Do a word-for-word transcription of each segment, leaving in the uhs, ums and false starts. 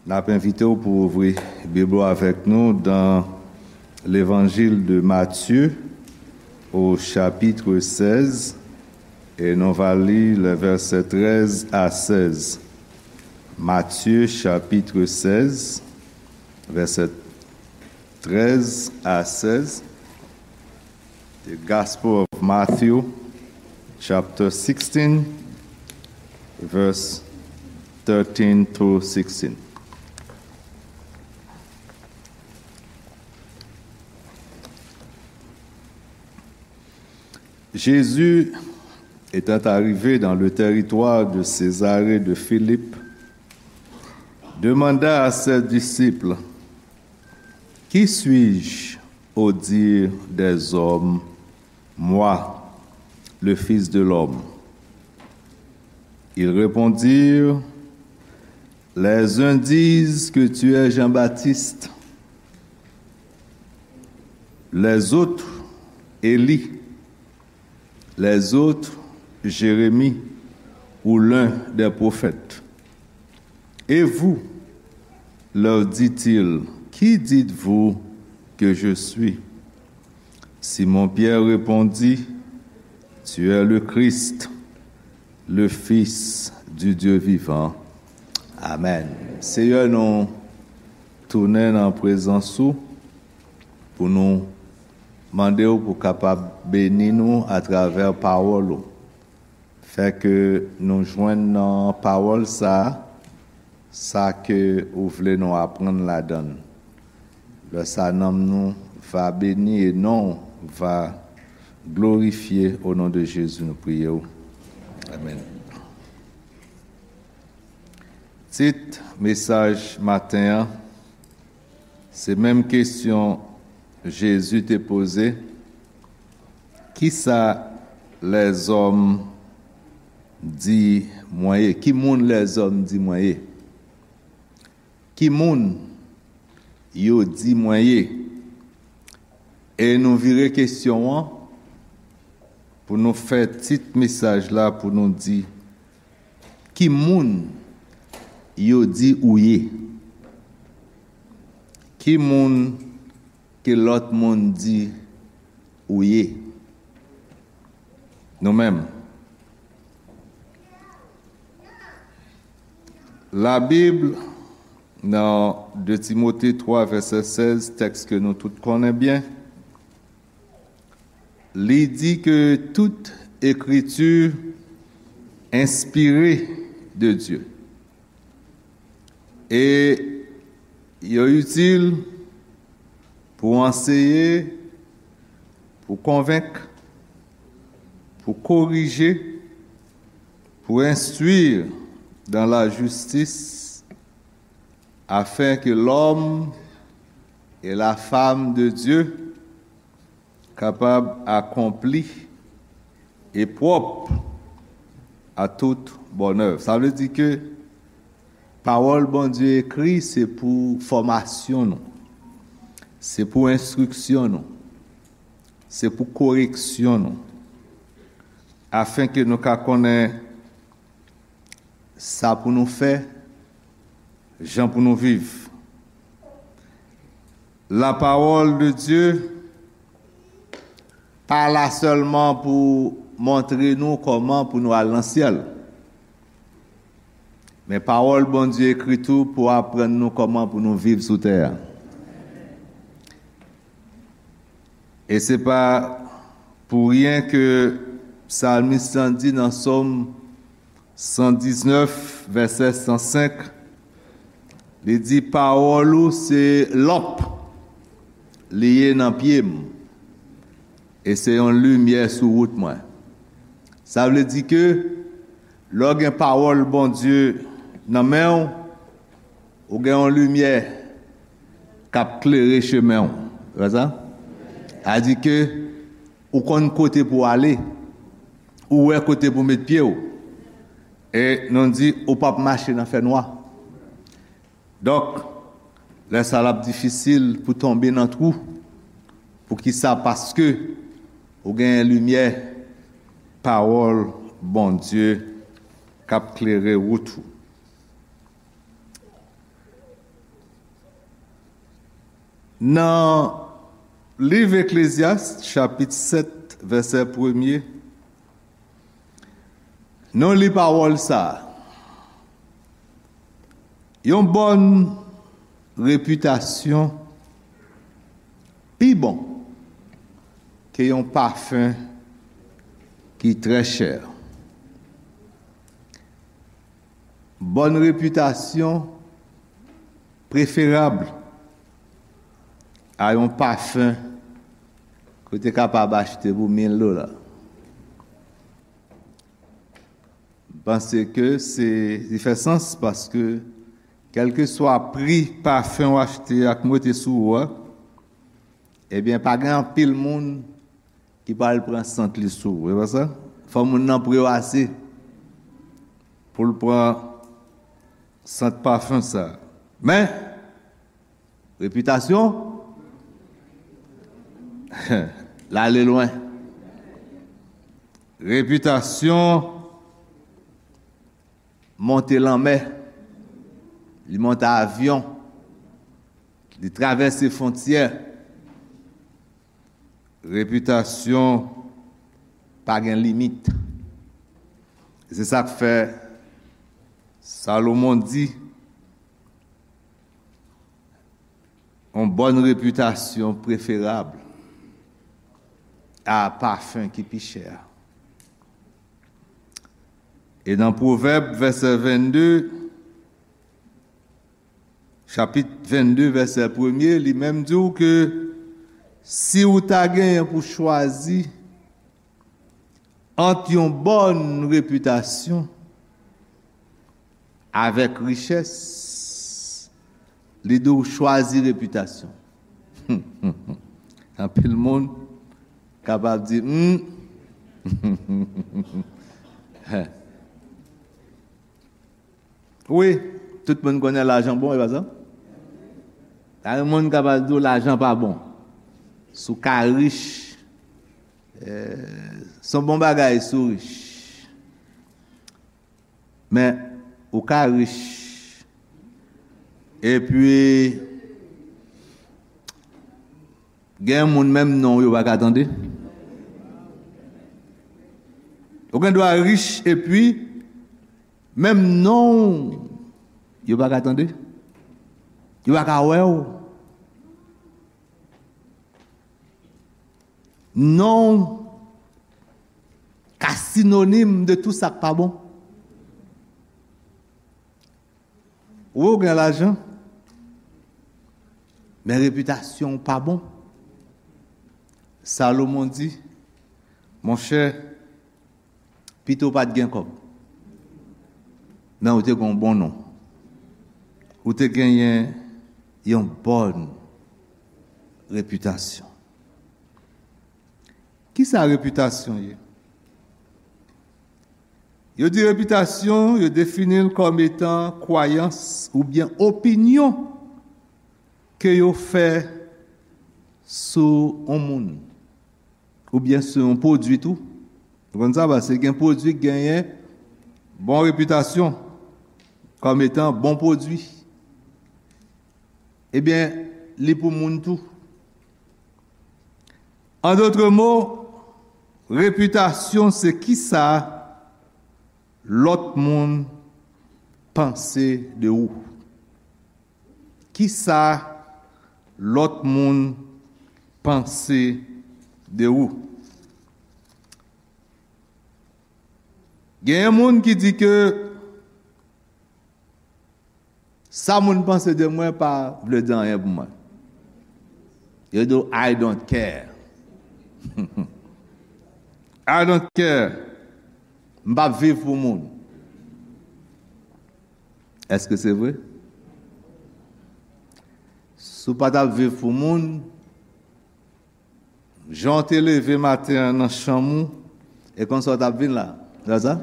N ap envite w pou w ouvri Bib ou avèk nou dans l'Évangile de Matthieu, au chapitre seize, et nou va li les versets treize à seize. Matthieu chapitre seize, verset treize à seize. The Gospel of Matthew, chapter sixteen, verse thirteen through sixteen. Jésus, étant arrivé dans le territoire de Césarée de Philippe, demanda à ses disciples: Qui suis-je au dire des hommes, moi, le Fils de l'homme? Ils répondirent: Les uns disent que tu es Jean-Baptiste, les autres Élie, les autres Jérémie ou l'un des prophètes. Et vous, leur dit-il, qui dites-vous que je suis? Simon-Pierre répondit: Tu es le Christ, le Fils du Dieu vivant. Amèn. Seyè, nou tounen nan prezans ou pou nou mande w pou kapab beni nou atravè pawòl ou. Fè ke nou jwenn nan pawòl sa a, sa ke ou vle nou aprann ladan l. Lè sa, nanm nou va beni e non w va glorifye. O non de Jezi, nou priye w. Amèn. Tit mesaj maten an, se menm kesyon Jezi te poze: Kisa lèzòm di mwen ye? Ki moun lèzòm di mwen ye? Ki moun yo di mwen ye? E nou vire kesyon an pou nou fè tit mesaj la pou nou di: Ki moun yo di ou ye? Ki moun ke lòt moun di ou ye? Nou menm. Labib, nan de Timote twa, vèsè sèz, tèks ke nou tout konnen byen, li di ke tout ekriti enspire de Dye. E yo itil pou anseye, pou konvenk, pou korije, pou enstwi dans la justice, afin que l'homme et la femme de Dieu kapab akonpli e pwòp à toute bonne œuvre. Sa vle di ke pawòl Bondye ekri, se pou fòmasyon nou, se pou enstriksyon nou, se pou koreksyon nou, afin ke nou ka konnen sa pou nou fè, jan pou nou viv. La parole de Dieu pa la sèlman pou montre nou kòman pou nou al nan syèl. Men pawòl Bondye ekri tou pou aprann nou kòman pou nou viv sou tè a. E se pa pou ryen ke psalmis lan di nan Sòm san diznèf, vèsè san senk, li di: Pawòl ou se lanp li ye nan pye m, e se yon limyè sou wout mwen. Sa vle di ke lè w gen pawòl Bondye nan men w, ou gen yon limyè k ap klere chemen w. Se pa sa? Sa di ke ou konn kote pou w ale, ou wè kote pou w met pye w. E nou di, ou p ap mache nan fènwa. Donk, lè sa l ap difisil pou tonbe nan twou. Poukisa? Paske ou genyen limyè pawòl Bondye k ap klere wout ou. Nan liv Eklezyas, chapit sèt, vèsè premye, nou li pawòl sa a. Yon bòn repitasyon pi bon ke yon pafen ki trè chè. Bòn repitasyon preferab a yon pafen ke w te kapab achte pou mil dola. M panse ke se, li fè sans paske kèlkeswa pri pafen w achte ak mete sou ou a, ebyen, pa gen anpil moun ki pral pran sant li sou ou, e pa sa? Fò moun nan pre w ase pou l pran sant pafen sa. Men, repitasyon, l ale lwen. Repitasyon monte lanmè, li monte avyon, li travèse fwontyè. Repitasyon pa gen limit. Se sa k fè Salomon di, yon bòn repitasyon preferab a pafen ki pi chè a. E nan Pwovèb, vèsè vennde, chapit vennde, vèsè premye, li menm di w ke si w ta genyen pou chwazi ant yon bòn repitasyon avèk richès, li di w chwazi repitasyon. Anpil moun kapab di, hmm. Wi, tout moun konnen lajan bon, e pa sa? Pa gen moun kapab di w lajan pa bon. Si w ka rich, eh, se yon bon bagay si w rich. Men, ou ka rich, epi gen moun menm non w yo pa ka tande. Ou gen dwa rich, epi menm non w yo pa ka tande. Yo pa ka wè w. Non w ka sinonim de tout sa k pa bon. Ou gen lajan, men repitasyon w pa bon. Salomon di, monchè, pito w pa t gen kòb, men ou te gen yon bon non. Ou te genyen yon bòn repitasyon. Kisa repitasyon ye? Yo di repitasyon, yo defini l kòm etan kwayans oubyen opinyon ke yo fè sou yon moun oubyen sou yon pwodui tou. Ou konn sa, paske gen pwodui ki genyen bon repitasyon kòm etan bon pwodui. Ebyen, li pou moun tou. An dòt mo, repitasyon se kisa lòt moun panse de ou. Kisa lòt moun panse de ou. Genyen moun ki di ke sa moun panse de mwen pa vle di anyen pou mwen. Yo di w, "I don't care." "I don't care." M p ap viv pou moun. Èske se vre? Si w pa t ap viv pou moun, jan w te leve maten an nan chanm ou, e konsa w t ap vin la. Se pa sa?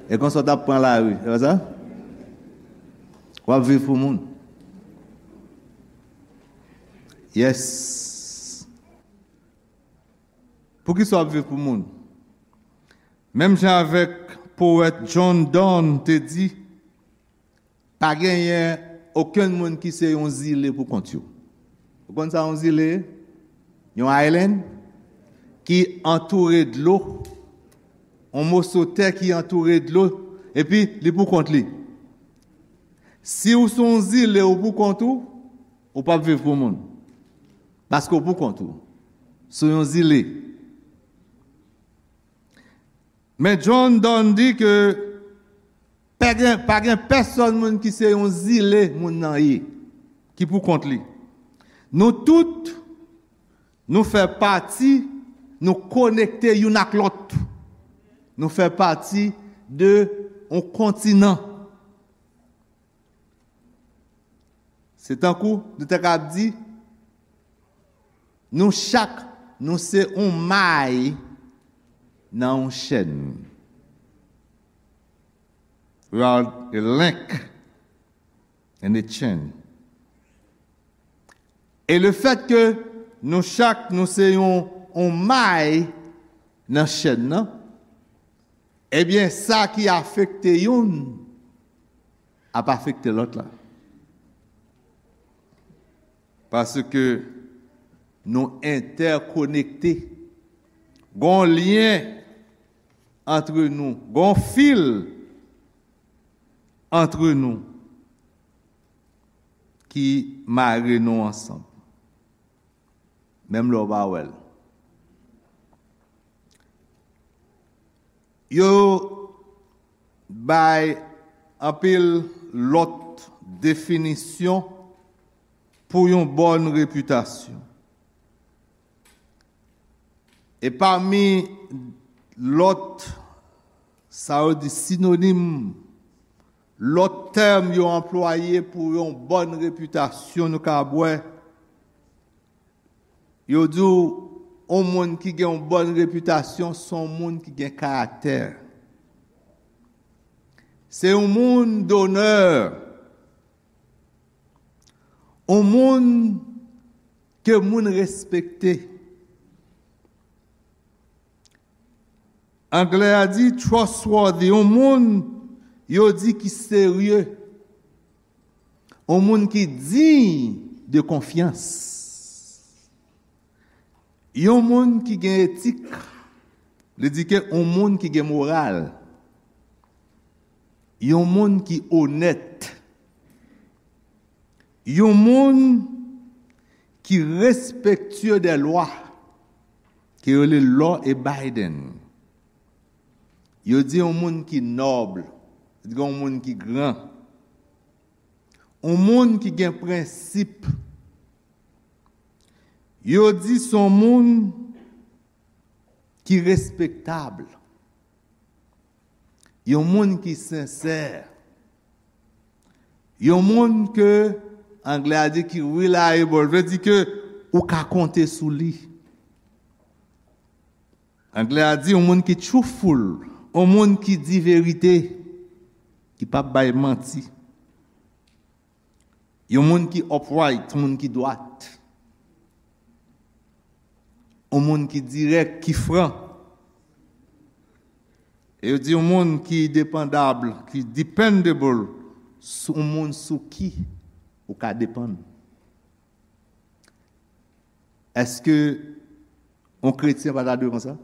E konsa w t ap pran lari. Se pa sa? W ap viv pou moun. Yes. Poukisa w ap viv pou moun? Menm jan avèk powèt John Donne te di, pa genyen okenn moun ki se yon zile pou kont yo. Ou konn sa yon zile? Yon island ki antoure dlo. Yon moso tè ki antoure dlo, epi li pou kont li. Si w se yon zile, ou pou kont ou, ou p ap viv pou moun. Paske w pou kont ou. Sou yon zile. Men John Donne di ke pa gen, pa gen pèsonn moun ki se yon zile moun nan ye, ki pou kont li. Nou tout, nou fè pati, nou konekte youn ak lòt. Nou fè pati de yon kontinan. Se tankou nou te ka di, nou chak, nou se yon may nan yon chèn. We are a link in a chain. E le fèt ke nou chak, nou se yon, yon may nan chèn nan, ebyen, sa ki afekte youn ap afekte lòt la. Paske nou entèkonekte. Gon lyen antre nou, gon fil antre nou ki mare nou ansanm. Menm lè w pa wè l. Yo bay anpil lòt definisyon pou yon bòn repitasyon. E pami lòt, sa yo di sinonim, lòt tèm yo anplwaye pou yon bòn repitasyon, nou ka wè, yo di w, yon moun ki gen yon bòn repitasyon, se yon moun ki gen karaktè. Se yon moun donè. Yon moun ke moun respekte. Anglè a di trustworthy, yon moun yo di ki serye. Yon moun ki diy de konfyans. Yon moun ki gen etik. Li di ke yon moun ki gen moral. Yon moun ki onèt. Yon moun ki respektye dè lwa, ke yo rele law abiding. Yo di yon moun ki nòb, yo di yon moun ki gran. Yon moun ki gen prensip. Yo di se yon moun ki respektab. Yon moun ki sensè. Yon moun ke anglè a di ki reliable, vle di ke ou ka konte sou li. Anglè a di yon moun ki truthful, yon moun ki di verite, ki p ap bay manti. Yon moun ki upright, yon moun ki dwat. Yon moun ki dirèk, ki fran. E yo di yon moun ki depandab, ki dependable, sou, yon moun sou ki ou ka depann. Èske yon kretyen pa ta dwe konsa?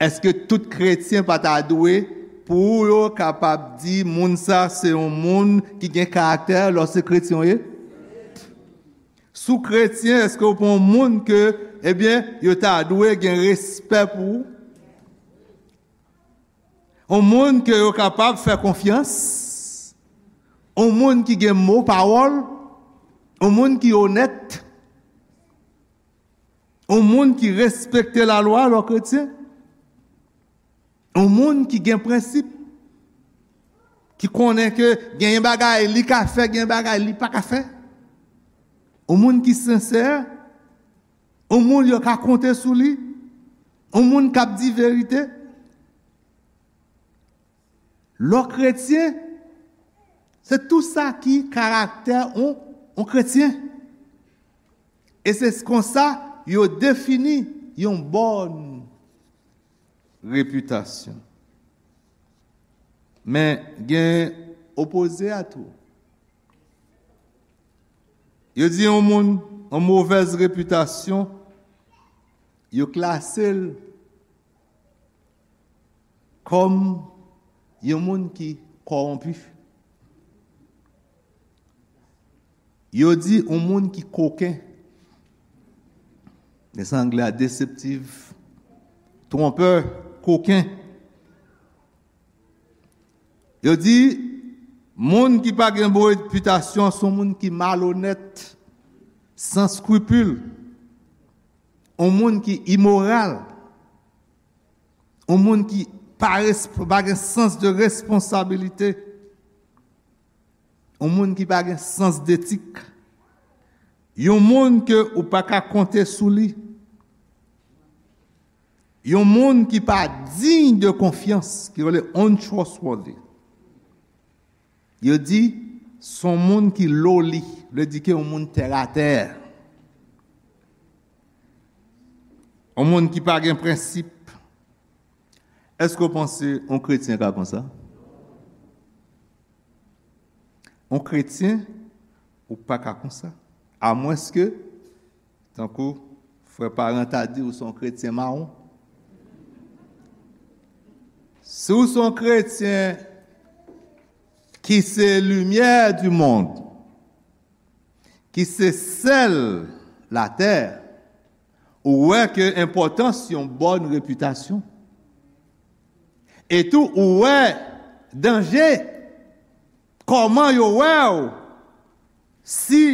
Èske tout kretyen pa ta dwe, pou yo kapab di moun sa se yon moun ki gen karaktè lòske kretyen w ye? Si w kretyen, èske w pa yon moun ke, ebyen, yo ta dwe gen respè pou ou? Yon moun ke yo kapab fè konfyans, yon moun ki gen mo pawòl, yon moun ki onèt, yon moun ki respekte lalwa lè w kretyen, yon moun ki gen prensip, ki konnen ke genyen bagay li ka fè, genyen bagay li pa ka fè, yon moun ki sensè, yon moun yo ka konte sou li, yon moun k ap di verite. Lè w kretyen, se tou sa ki karaktè yon, yon kretyen. E se konsa yo defini yon bòn repitasyon. Men gen opoze a tou. Yo di yon moun, yon movèz repitasyon, yo klase l kòm yon moun ki kòwonpi. Yo di yon moun ki koken. Men sa anglè a, deseptif, twonpè, koken. Yo di, moun ki pa gen bon repitasyon, se yon moun ki malonèt, san eskripil, yon moun ki imoral, yon moun ki pa res-, pa gen sans de responsabilite, yon moun ki pa gen sans detik, yon moun ke ou pa ka konte sou li, yon moun ki pa diy de konfyans, ki rele untrustworthy. Yo di, se yon moun ki loli, vle di ke yon moun tèratè. Yon moun ki pa gen prensip. Èske w panse yon kretyen ka konsa? Yon kretyen, ou pa ka konsa. Amwenske, tankou frè Paran ta di, ou se yon kretyen mawon. Si w se yon kretyen ki se limyè di mond, ki se sèl latè, ou wè ke enpòtans yon bòn repitasyon. E tou, ou wè danje, kòman yo wè w si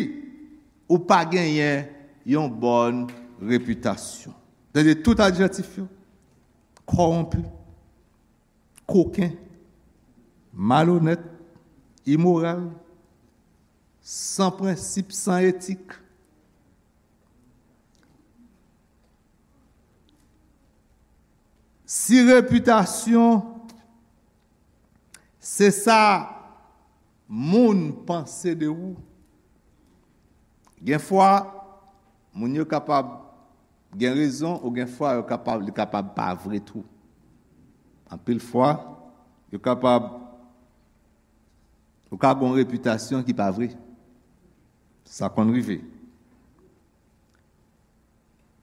ou pa genyen yon bòn repitasyon. Tande tout adjektif yo. Kòwonpi, koken, malonèt, imoral, san prensip, san etik. Si repitasyon se sa moun panse de ou, gen fwa moun yo kapab gen rezon, ou gen fwa yo kapab, li kapab pa vre tou. Anpil fwa, yo kapab, ou ka gen yon repitasyon ki pa vre. Sa konn rive.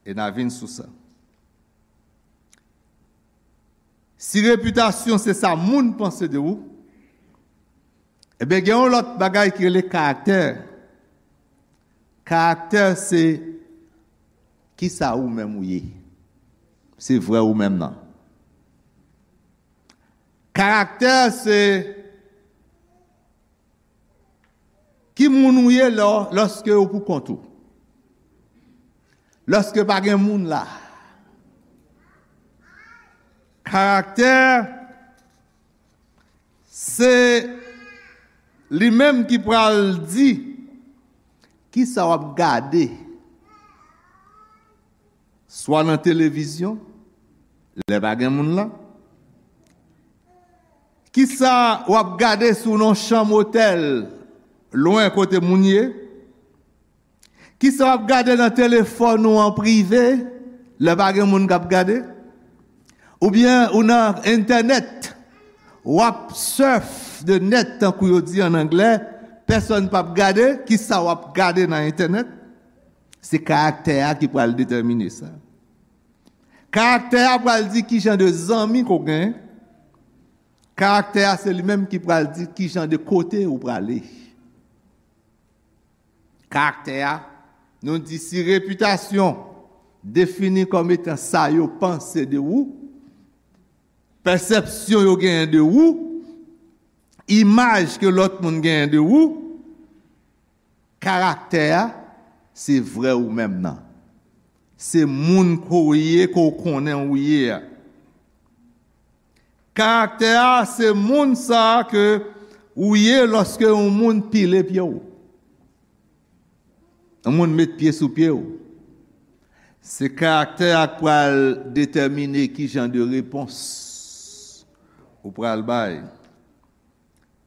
E n a vin sou sa. Si repitasyon se sa moun panse de ou, ebyen, gen yon lòt bagay ki rele karaktè. Karaktè se kisa ou menm ou ye. Se vrè ou menm nan. Karaktè se ki moun ou ye lò, lòske ou pou kont ou. Lòske pa gen moun la. Karaktè, se li menm ki pral di kisa w ap gade, swa nan televizyon, lè pa gen moun la. Kisa w ap gade sou yon chanm otèl, lwen kote moun ye? Kisa w ap gade nan telefòn ou an prive, lè pa gen moun k ap gade? Oubyen ou nan entènèt, w ap surf the net, tankou yo di an anglè, pèsonn p ap gade, kisa w ap gade nan entènèt? Se karaktè a ki pral detèmine sa. Karaktè a pral di ki jan de zanmi ke w gen. Karaktè a se li menm ki pral di ki jan de kote ou prale. Karaktè a, nou di si repitasyon defini kòm etan sa yo panse de ou, pèsepsyon yo genyen de ou, imaj ke lòt moun genyen de ou, karaktè a, se vrè ou menm nan. Se moun ke w ye, ke w konnen ou ye a. Karaktè a, se moun sa a ke ou ye lòske yon moun pile pye w. Yon moun met pye sou pye w. Se karaktè a k pral detèmine ki jan de repons ou pral bay.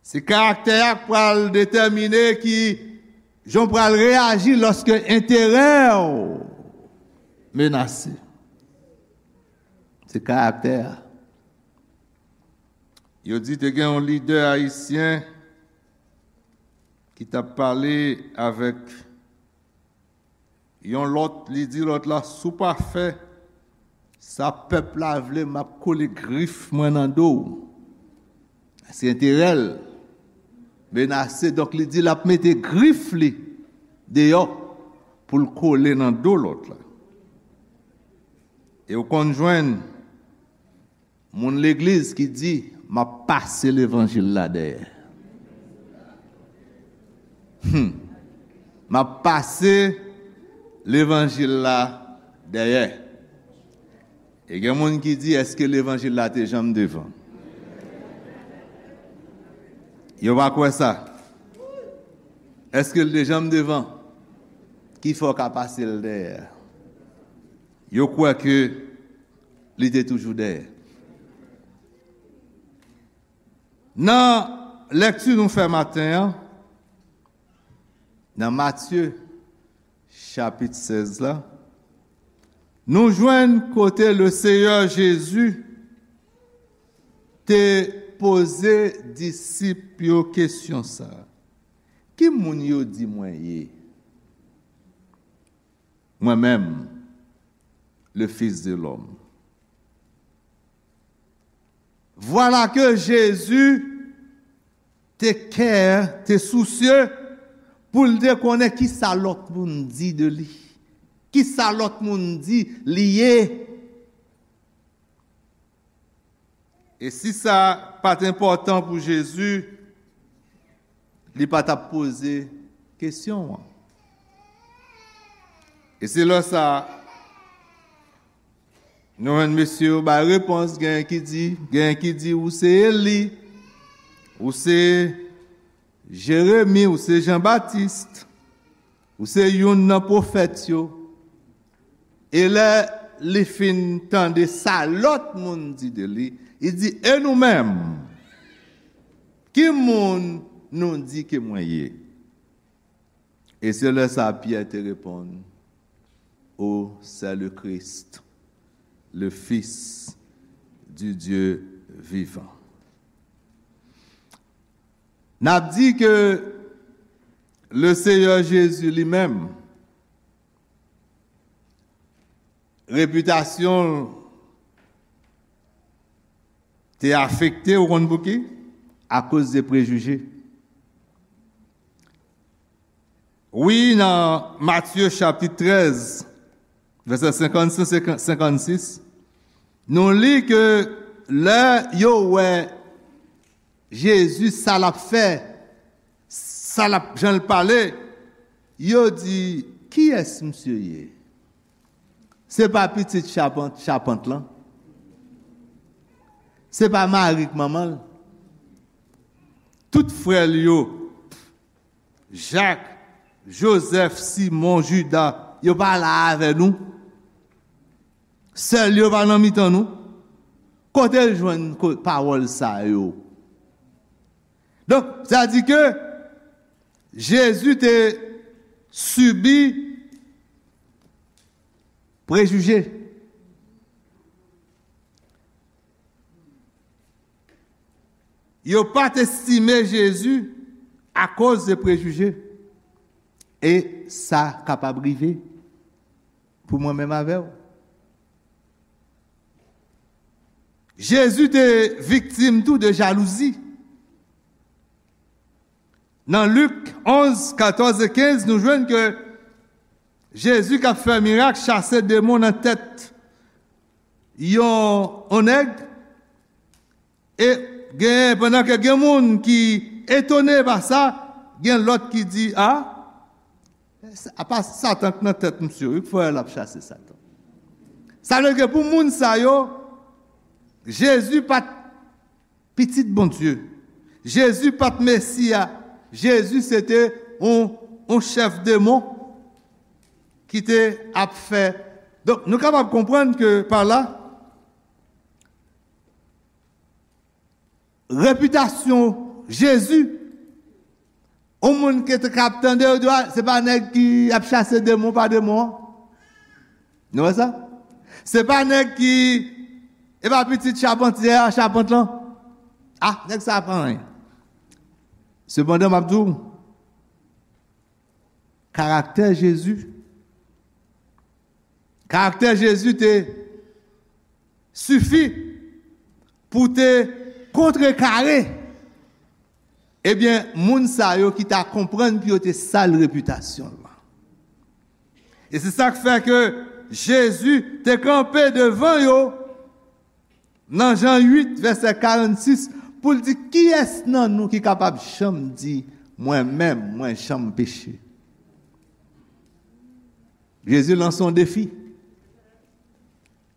Se karaktè a k pral detèmine ki jan w pral reyaji lòske enterè w menase. Se karaktè a. Yo di te gen yon lidè ayisyen ki t ap pale avèk Yon lòt, li di lòt la, "Si w pa fè sa pèp la vle, m ap kole grif mwen nan do w." Se enterè l menase, donk li di l ap mete grif li deyò pou l kole nan do lòt la. E w konn jwenn moun legliz ki di, "M ap pase levanjil la dèyè." Hmm. "M ap pase levanjil la dèyè." E gen moun ki di, "Èske levanjil la te janm devan?" Yo pa kwè sa. Èske l te janm devan? Ki fè w ka pase l dèyè? Yo kwè ke li te toujou dèyè. Nan lèkti nou fè maten an, nan Matye chapit sèz la, nou jwenn kote le Seyè Jezi te poze disip yo kesyon sa a, "Ki moun yo di mwen ye?" Mwen menm, le Fils de l'Homme. Vwala ke Jezi te kè, te sousye pou l te konnen ki sa lòt moun di de li, ki sa lòt moun di li ye. E si sa pa t enpòtan pou Jezi, li pa t ap poze kesyon an. E se lè sa a, nou jwenn mesye yo bay repons, genyen ki di, genyen ki di, "Ou se Eli, ou se Jeremi, ou se Jan Batis, ou se youn nan pwofèt yo." E lè li fin tande sa lòt moun di de li, li di, "E nou menm, ki moun nou di ke mwen ye?" E se lè sa Pyè te reponn, "Ou se le Christ, le Fils du Dieu vivant." N ap di ke le Seyè Jezi li menm, repitasyon l te afekte, ou konn pouki? Akoz de prejije. Wi, nan Matye chapit trèz, vèsè senkannsenk, senkannsis, nou li ke lè yo wè Jezi, sa l ap fè, sa l ap, jan l pale, yo di, "Kiyès misye ye? Se pa pitit chapant, chapant lan? Se pa Mari k manman l? Tout frè l yo, Jak, Jozèf, Simon, Jida, yo pa la avè nou? Sè l yo pa nan mitan nou? Kote l jwenn ko-, pawòl sa yo?" Donk, sa di ke Jezi te sibi prejije. Yo pa t estime Jezi akoz de prejije. E sa kapab rive pou mwen menm avè w. Jezi te viktim tou de jalouzi. Nan Lik onz, katòz e kenz, nou jwenn ke Jezi k ap fè mirak, chase demon nan tèt yon, yon nèg, e gen, pandan ke gen moun ki etone pa sa, gen lòt ki di, "A, apa Satan k nan tèt misye, wi, k fè l ap chase Satan." Sa vle di ke pou moun sa yo, Jezi pa t pitit Bondye. Jezi pa t Mesi a. Jezi se te yon, yon chèf demon ki te ap fè. Donk, nou kapab konprann ke pa la, repitasyon Jezi, yon moun ki te ka ap tande yo di, "A, se pa nèg ki ap chase demon pa demon an?" Nou wè sa? Se pa nèg ki, e pa pitit chapantye a, chapant lan? A, nèg sa a pa anyen. Sepandan, m ap di w, karaktè Jezi, Karaktè Jezi te sifi pou te kontrekare, ebyen, moun sa yo ki ta konprann pou yo te sal repitasyon l lan. E se sa k fè ke Jezi te kanpe devan yo nan Jan uit, vèsè karannsis, pou l di, "Kiyès nan nou ki kapab janm di, 'Mwen menm, mwen janm peche'?" Jezi lanse yon defi.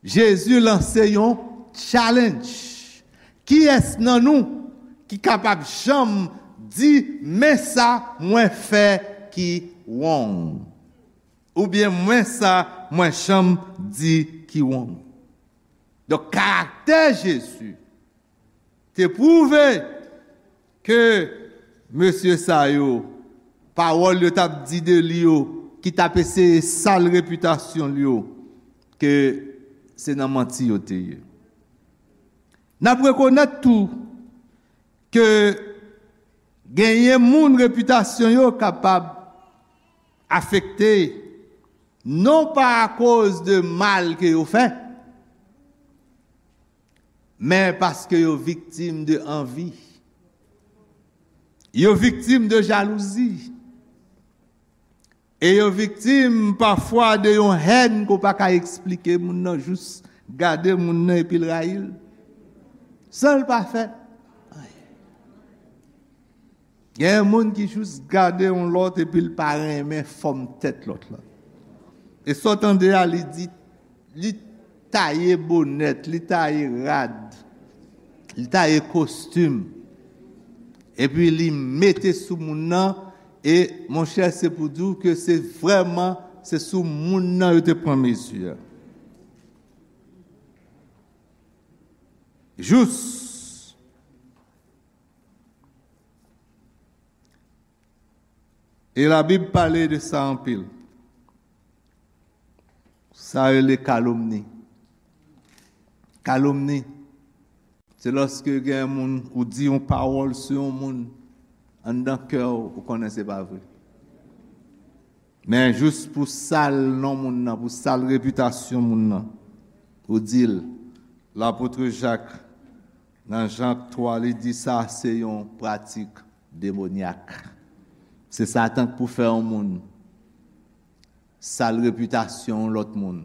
Jezi lanse yon challenge. Kiyès nan nou ki kapab janm di, "Men sa mwen fè ki wrong"? Oubyen, "Men sa mwen janm di ki wrong"? Donk, karaktè Jezi te pwouve ke mesye sa yo, pawòl yo t ap di de li yo, ki t ap eseye sal repitasyon l yo, ke se nan manti yo te ye. N ap rekonèt tou ke genyen moun repitasyon yo kapab afekte, non pa akoz de mal ke yo fè, men paske yo viktim de anvi. Yo viktim de jalouzi. E yo viktim pafwa de yon hèn ke w pa ka eksplike. Moun nan jis gade moun nan epi l rayi l, san l pa fè anyen. Gen moun ki jis gade yon lòt epi l pa renmen fòm tèt lòt la. E sa w tande a, li di, li taye bonèt, li taye rad, li taye kostim. Epi li mete sou moun nan, e monchè, se pou di w ke se vrèman, se sou moun nan yo te pran mezi a. Jous. E Labib pale de sa anpil. Sa rele kalomni. Kalomni, se lòske gen moun, ou di yon pawòl sou yon moun, anndan kè w, ou konnen se pa vre. Men jis pou sal non moun nan, pou sal repitasyon moun nan, ou di l, lapot Jak, nan Jan twa, li di sa se yon pratik demonyak. Se Satan k pou fè yon moun sal repitasyon yon lòt moun,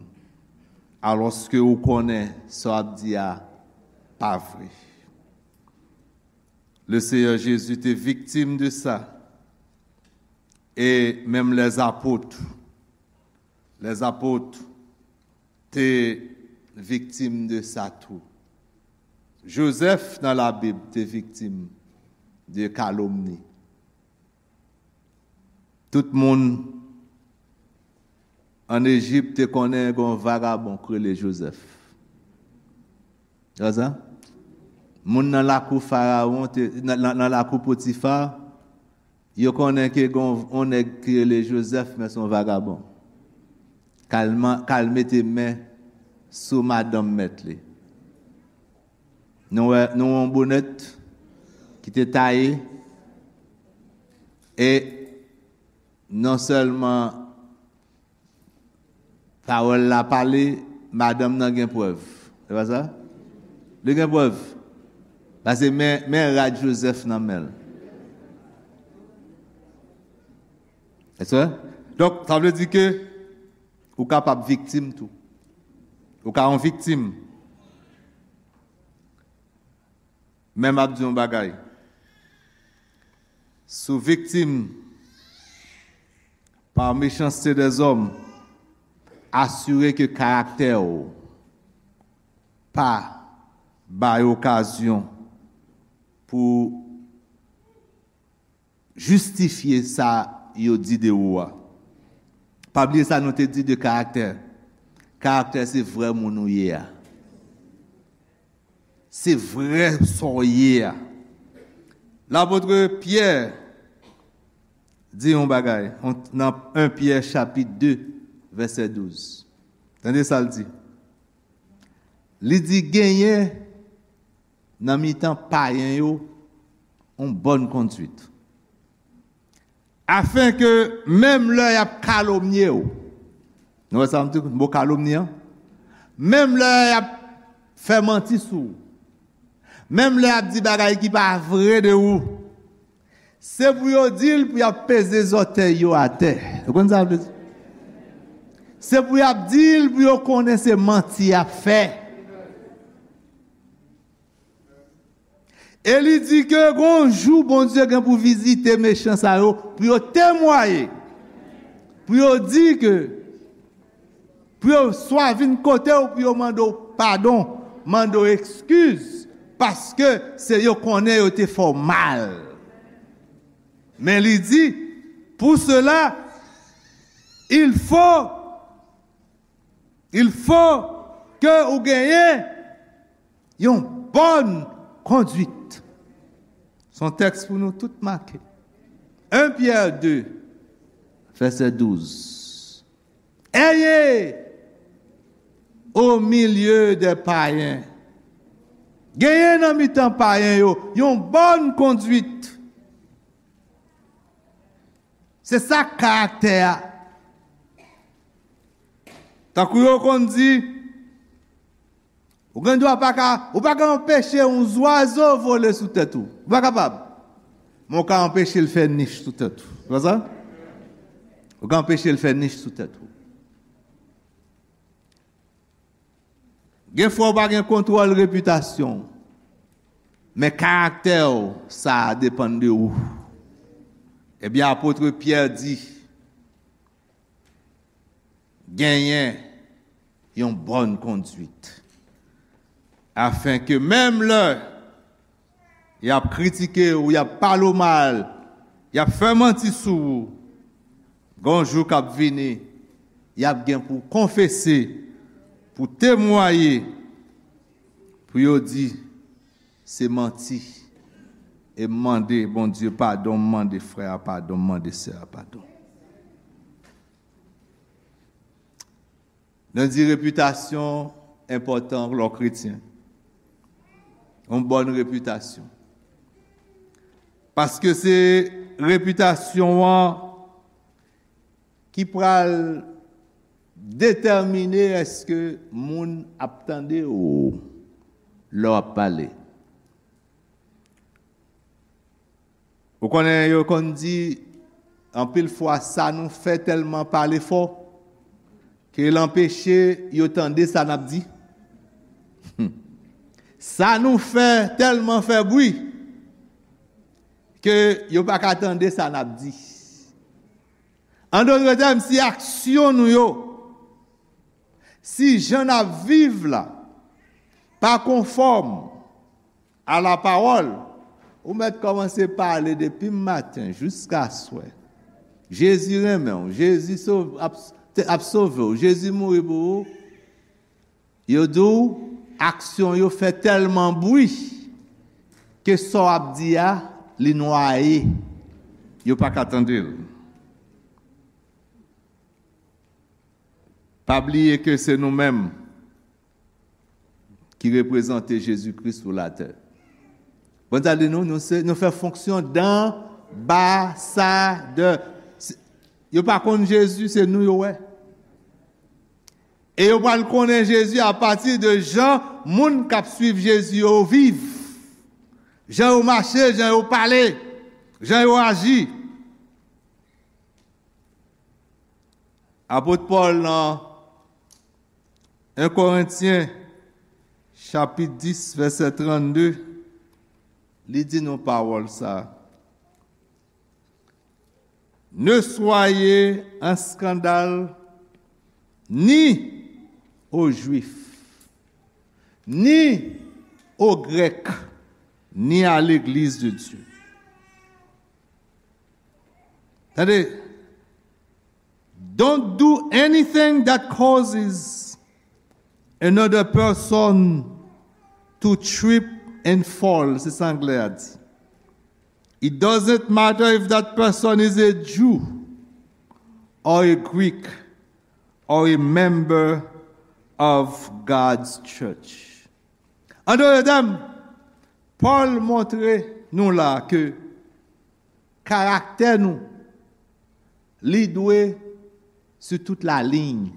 alòske ou konnen sa w ap di a pa vre. Le Seyè Jezi te viktim de sa, e menm lèzapot, lèzapot te viktim de sa tou. Jozèf nan Labib te viktim de kalomni. Tout moun ann Ejip te konnen gen yon vagabon k rele Jozèf. Wè sa? Moun nan lakou Farawon, te, nan, nan, nan lakou Potifa, yo konnen ke gen yon, yon nèg ki rele Jozèf, men se yon vagabon. K al man-, k al mete men sou madanm mèt li. Nou wè, nou wè yon bonèt ki te taye, e non sèlman pawòl la pale, madanm nan gen prèv. Se pa sa? Li gen prèv. Paske men, men rad Jozèf nan men l. Èske? Donk, sa vle di ke ou kapab viktim tou. Ou ka yon viktim. Men m ap di yon bagay. Si w viktim par méchanceté des hommes, asire ke karaktè w pa bay okazyon pou jistifye sa yo di de ou a. Pa bliye sa nou te di de karaktè. Karaktè se vrè moun ou ye a. Se vrè sa w ye a. Lapot Pyè di yon bagay, on, nan en Pyè chapit de, vèsè douz. Tande sa l di. Li di, "Genyen nan mitan payen yo yon bòn konduit, afen ke menm lè y ap kalomnye w, Nou wè sa m di, mo kalomni an? Menm lè y ap fè manti sou ou, menm lè y ap di bagay ki pa vre de ou, se pou yo di l pou y ap peze zòtèy yo atè. Ou konn sa vle di? Se pou y ap di l pou yo konnen se manti y ap fè. E li di ke gon jou Bondye gen pou vizite mechan sa yo, pou yo temwaye, pou yo di ke, pou yo swa vin kote w, pou yo mande w padon, mande w ekskiz, paske se yo konnen yo te fè w mal. Men li di, pour cela, il faut, il faut ke ou genyen yon bòn konduit. Se yon tèks pou nou tout make. En Pyè de, vèsè douz. Ayez au milieu des païens. Genyen nan mitan payen yo yon bòn konduit. Se sa k karaktè a. Tankou yo konn di, ou gen dwa pa ka, ou pa ka anpeche yon zwazo vole sou tèt ou. Ou pa kapab. Men ou ka anpeche l fè nich sou tèt ou. Se pa sa? Ou ka anpeche l fè nich sou tèt ou. Gen fwa w pa gen kontwòl repitasyon w, men karaktè w, sa a depann de ou. Ebyen, apot Pyè di, genyen yon bòn konduit, afenke menm lè y ap kritike w, y ap pale w mal, y ap fè manti sou ou, gon jou k ap vini, y ap gen pou konfese, pou temwaye, pou yo di se manti. E m mande Bondye padon, m mande frè a padon, m mande sè a padon. Nou di repitasyon enpòtan lè w kretyen. Yon bòn repitasyon. Paske se repitasyon an ki pral detèmine èske moun ap tande w lè w ap pale. Ou konnen yo konn di, anpil fwa sa nou fè tèlman pale fò ke l anpeche yo tande sa n ap di. Sa nou fè tèlman fè bri ke yo pa ka tande sa n ap di. An dòt tèm, si aksyon nou yo, si jan n ap viv la, pa konfòm a la pawòl, ou mèt kòmanse pale depi maten jiska swè. Jezi renmen w, Jezi sov-, ap, te, ap sove w, Jezi mouri pou ou. Yo di w, aksyon yo fè tèlman bri ke sa w ap di a, li nwaye. Yo pa ka tande l. Pa bliye ke se nou menm ki reprezante Jezi Kris sou latè. Bondye di nou, nou se, nou fè fonksyon danbasadè. Se, yo pa konn Jezi, se nou yo wè. E yo pral konnen Jezi apati de jan moun k ap swiv Jezi yo viv. Jan yo mache, jan yo pale, jan yo aji. Apot Pòl nan en Korentyen, chapit dis, vèsè trannde, li di nou pawòl sa a. Ne soyez un scandale ni aux Juifs, ni aux Grecs, ni à l'église de Dieu. Tande, don't do anything that causes another person to trip and fall, se sa anglè a di. It doesn't matter if that person is a Jew or a Greek or a member of God's church. An dòt tèm, Pòl montre nou la ke karaktè nou, li dwe sou tout la liy.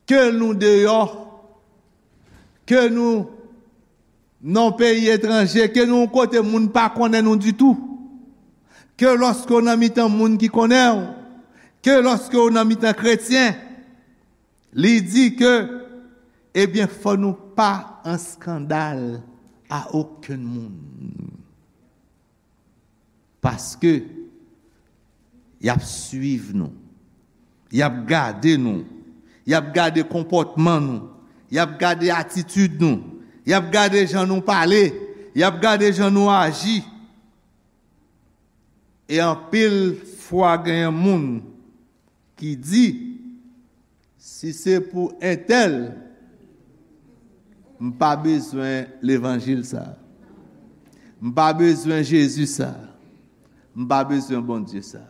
Ke nou deyò, ke nou nan yon peyi etranje, ke nou yon kote moun pa konnen nou ditou, ke lòske w nan mitan moun ki konnen w, ke lòske w nan mitan kretyen, li di ke, ebyen, fò nou pa an eskandal a okenn moun. Paske y ap swiv nou. Y ap gade nou. Y ap gade konpòtman nou. Y ap gade atitid nou. Y ap gade jan nou pale. Y ap gade jan nou aji. E anpil fwa genyen moun ki di, si se pou entèl, m pa bezwen levanjil sa. M pa bezwen Jezi sa. M pa bezwen Bondye sa.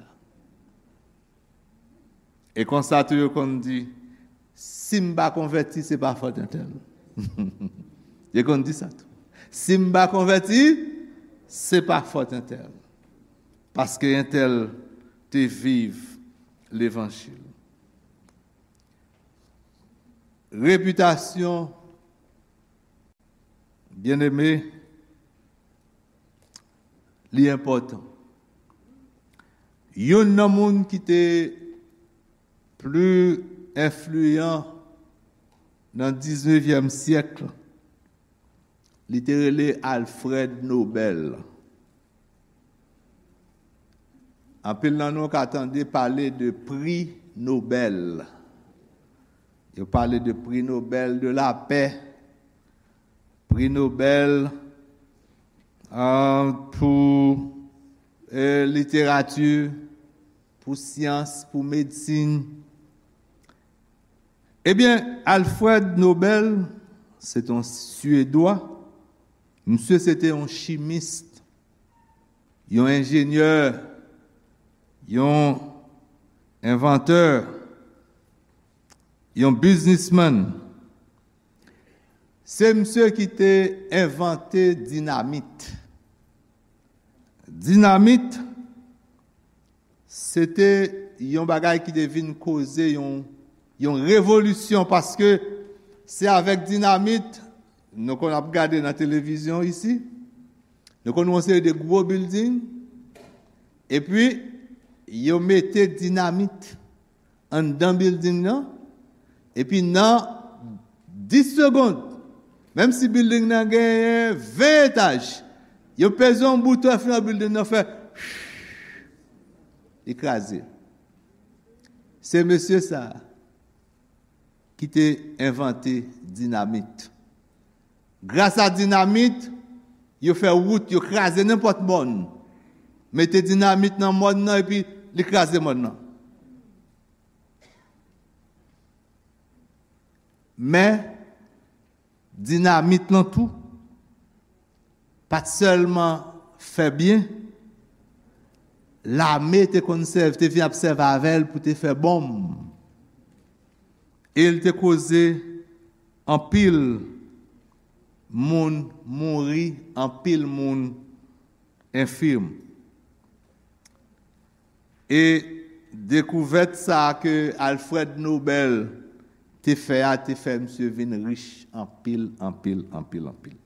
E konsa tou yo konn di, si m pa konvèti, se pa fòt entèl. Yo konn di sa tou. Si m pa konvèti, se pa fòt entèl. Paske entèl te viv levanjil. Repitasyon, byeneme, li enpòtan. Youn nan moun ki te pli enfliyan nan diznevyèm syèk, li te rele Alfred Nobel. Anpil nan nou ka tande pale de pri Nobel. Yo pale de pri Nobel de lapè, pri Nobel, ah, pou, eh, literati, pou syans, pou medsin. Ebyen, Alfred Nobel, se te yon Syedwa. Misye se te yon chimis, yon enjenyè, yon envantè, yon biznismann. Se misye ki te envante dinamit. Dinamit, se te yon bagay ki te vin koze yon, yon revolisyon, paske se avèk dinamit, nou konn ap gade nan televizyon isi, nou konn wè yon seri de gwo bilding, epi yo mete dinamit anndan bilding nan, epi nan dis segonn, menm si bilding nan genyen ven etaj, yo peze yon bouton epi nan bilding nan fè, li kraze. Se mesye sa a ki te envante dinamit. Gras a dinamit, yo fè wout, yo kraze nenpòt mòn. Mete dinamit nan mòn nan, epi li kraze mòn nan. Men, dinamit lan tou, pa t sèlman fè byen, lame te konn sèvi, te vin ap sèvi avè l pou te fè bonm. E l te koze anpil moun mouri, anpil moun enfim. E dekouvèt sa a ke Alfred Nobel te fè a, te fè misye vin rich anpil, anpil, anpil, anpil.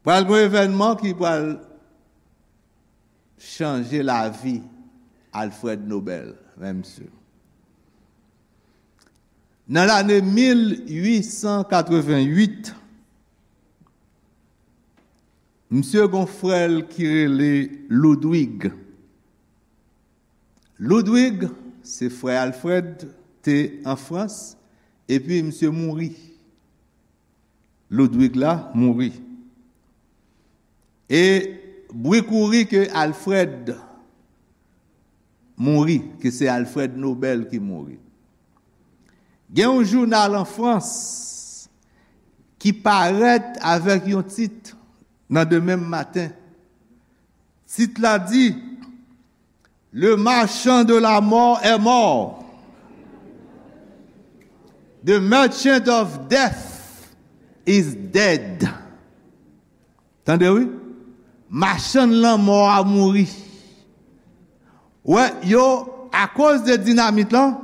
Pral gen yon evènman ki pral chanje lavi Alfred Nobel, men misye. Nan lane mil uit san katrevenn uit, misye gon frè l ki rele Ludwig. Ludwig, se frè Alfred, te an Frans, epi misye mouri. Ludwig la mouri. E bri kouri ke Alfred mouri, ke se Alfred Nobel ki mouri. Gen yon jounal an Frans ki parèt avèk yon tit nan demen maten. Tit la di, Le marchand de la mort est mort. The merchant of death is dead. Tande wi. Machann lanmò a mouri. Wè, yo, akoz de dinamit lan,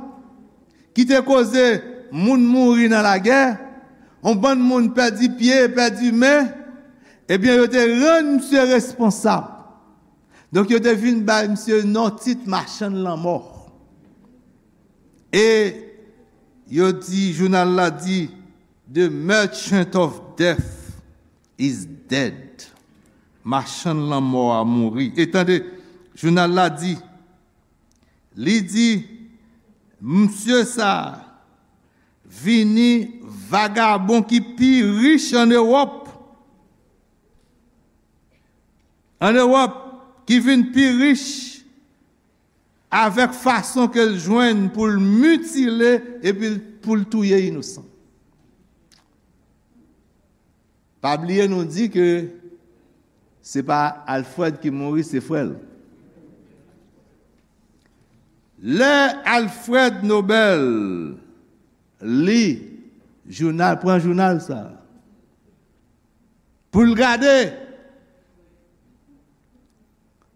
ki te koze moun mouri nan lagè, yon bann moun pèdi pye, pèdi men, ebyen, yo te rann misye responsab. Donk, yo te vin bay misye non tit machann lanmò. E yo di, jounal la di, "The merchant of death is dead." Machann lanmò a mouri. E tande, jounal la di, li di, "Misye sa a vini vagabon ki pi rich ann Ewòp." Ann Ewòp, ki vin pi rich avèk fason ke l jwenn pou l mitile epi pou l touye inosan. Pa bliye nou di ke se pa Alfred ki mouri, se frè l. Lè Alfred Nobel li jounal, pran jounal sa a, pou l gade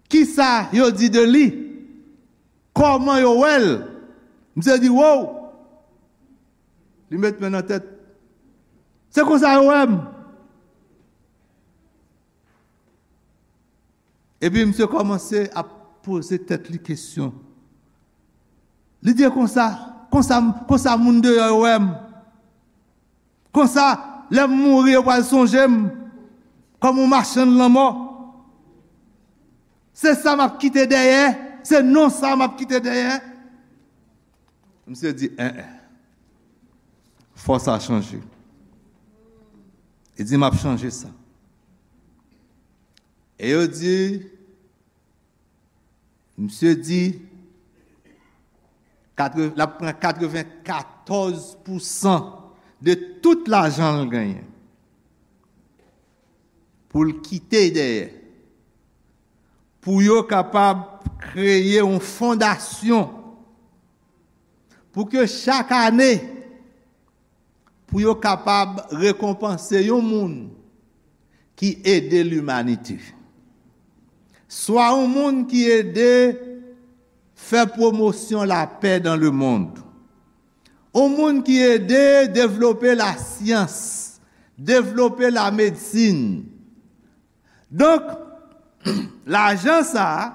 kisa yo di de li, kòman yo wè l. Misye di, "Wow!" Li met men nan tèt. "Se konsa yo wè m." Epi misye kòmanse ap poze tèt li kesyon. Li di, "E konsa, konsa, konsa moun deyò yo wè m. Konsa, lè m mouri, yo pral sonje m kòm yon machann lanmò. Se sa m ap kite dèyè, se non sa m ap kite dèyè." Misye di, "En, en, fò sa chanje." Li di, "M ap chanje sa." E yo di, misye di, katre-, l ap pran katrevenkatòz pousan de tout lajan l genyen pou l kite dèyè, pou yo kapab kreye yon fondasyon, pou ke chak ane, pou yo kapab rekonpanse yon moun ki ede limanite. Swa yon moun ki ede fè pwomosyon lapè dans le monde. Yon moun ki ede devlope lasyans, devlope lamedsin. Donk, lajan sa a,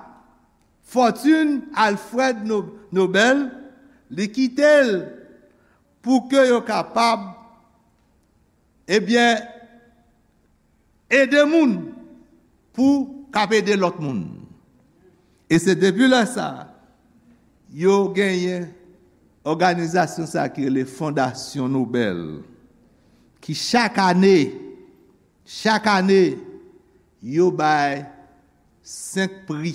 fòtin Alfred No-, Nobel, li kite l pou ke yo kapab, ebyen, ede moun pou k ap ede lòt moun. E se depi lè sa a, yo genyen òganizasyon sa a ki rele Fondasyon Nobel, ki chak ane, chak ane, yo bay senk pri.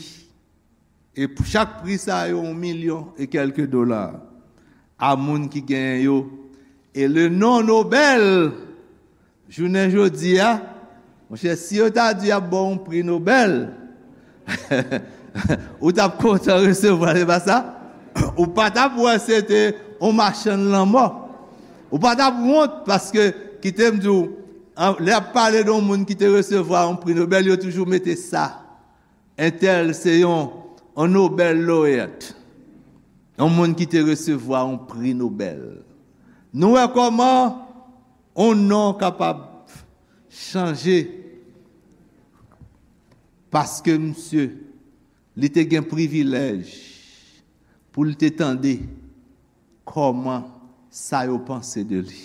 E pou chak pri sa yo, yon milyon e kèlke dola a moun ki genyen yo. E le non Nobel, jounen jodi a, monchè, si yo ta di y ap ba w yon pri Nobel, ou t ap kontan resevwa l, se pa sa? Ou pa t ap wè se te yon machann lanmò. Ou pa t ap wont, paske, kite m di w, an, lè y ap pale de yon moun ki te resevwa yon pri Nobel, yo toujou mete sa. Entèl se yon, yon Nobel laureate, yon moun ki te resevwa yon pri Nobel. Nou wè kòman yon non kapab chanje, paske misye, li te gen privilèj pou l te tande kòman sa yo panse de li,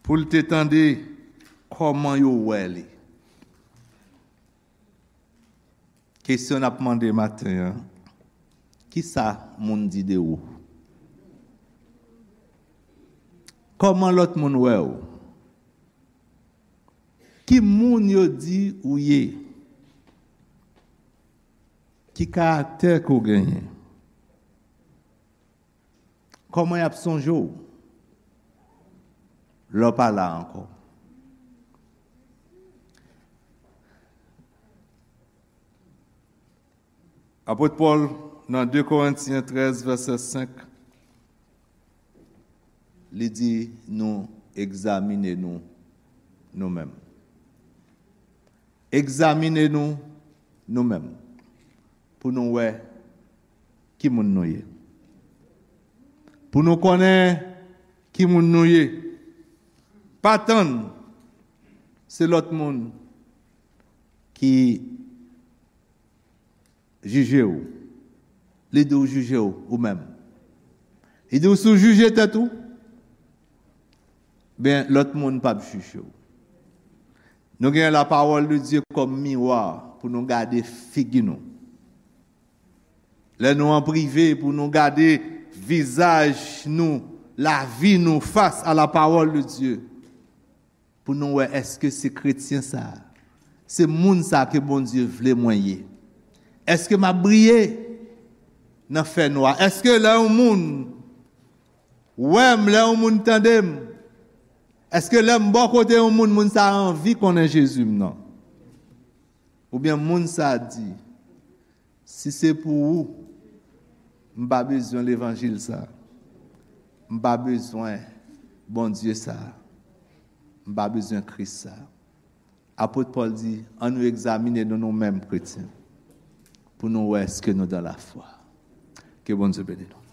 pou l te tande kòman yo wè li. Kesyon n ap mande maten an, kisa moun di de ou? Kòman lòt moun wè w? Ki moun yo di ou ye? Ki karaktè ke w genyen? Kòman y ap sonje w lè w pa la ankò? Apot Pòl, nan de Korentyen trèz, vèsè senk, li di nou egzamine nou, nou menm. Egzamine nou, nou menm, pou nou wè ki moun nou ye. Pou nou konnen ki moun nou ye. Pa tann se lòt moun ki jije w. Li di w jije w ou menm. Li di w si w jije tèt ou, ben lòt moun p ap jije w. Nou gen lapawòl de Dye kòm miwa pou nou gade figi nou. Lè nou an prive, pou nou gade vizaj nou, lavi nou fas a lapawòl de Dye. Pou nou wè èske se kretyen sa a, se moun sa a ke Bondye vle mwen ye. Èske m ap briye nan fènwa? Èske lè yon moun wè m, lè yon moun tande m, èske lè m bò kote yon moun, moun sa a anvi konnen Jezi m nan? Oubyen moun sa a di, si se pou ou, m pa bezwen levanjil sa. M pa bezwen Bondye sa. M pa bezwen Kris sa. Apot Pòl di, ann nou egzamine nou nou menm kretyen pou nou wè èske nou dan lafwa. Ke Bondye beni nou.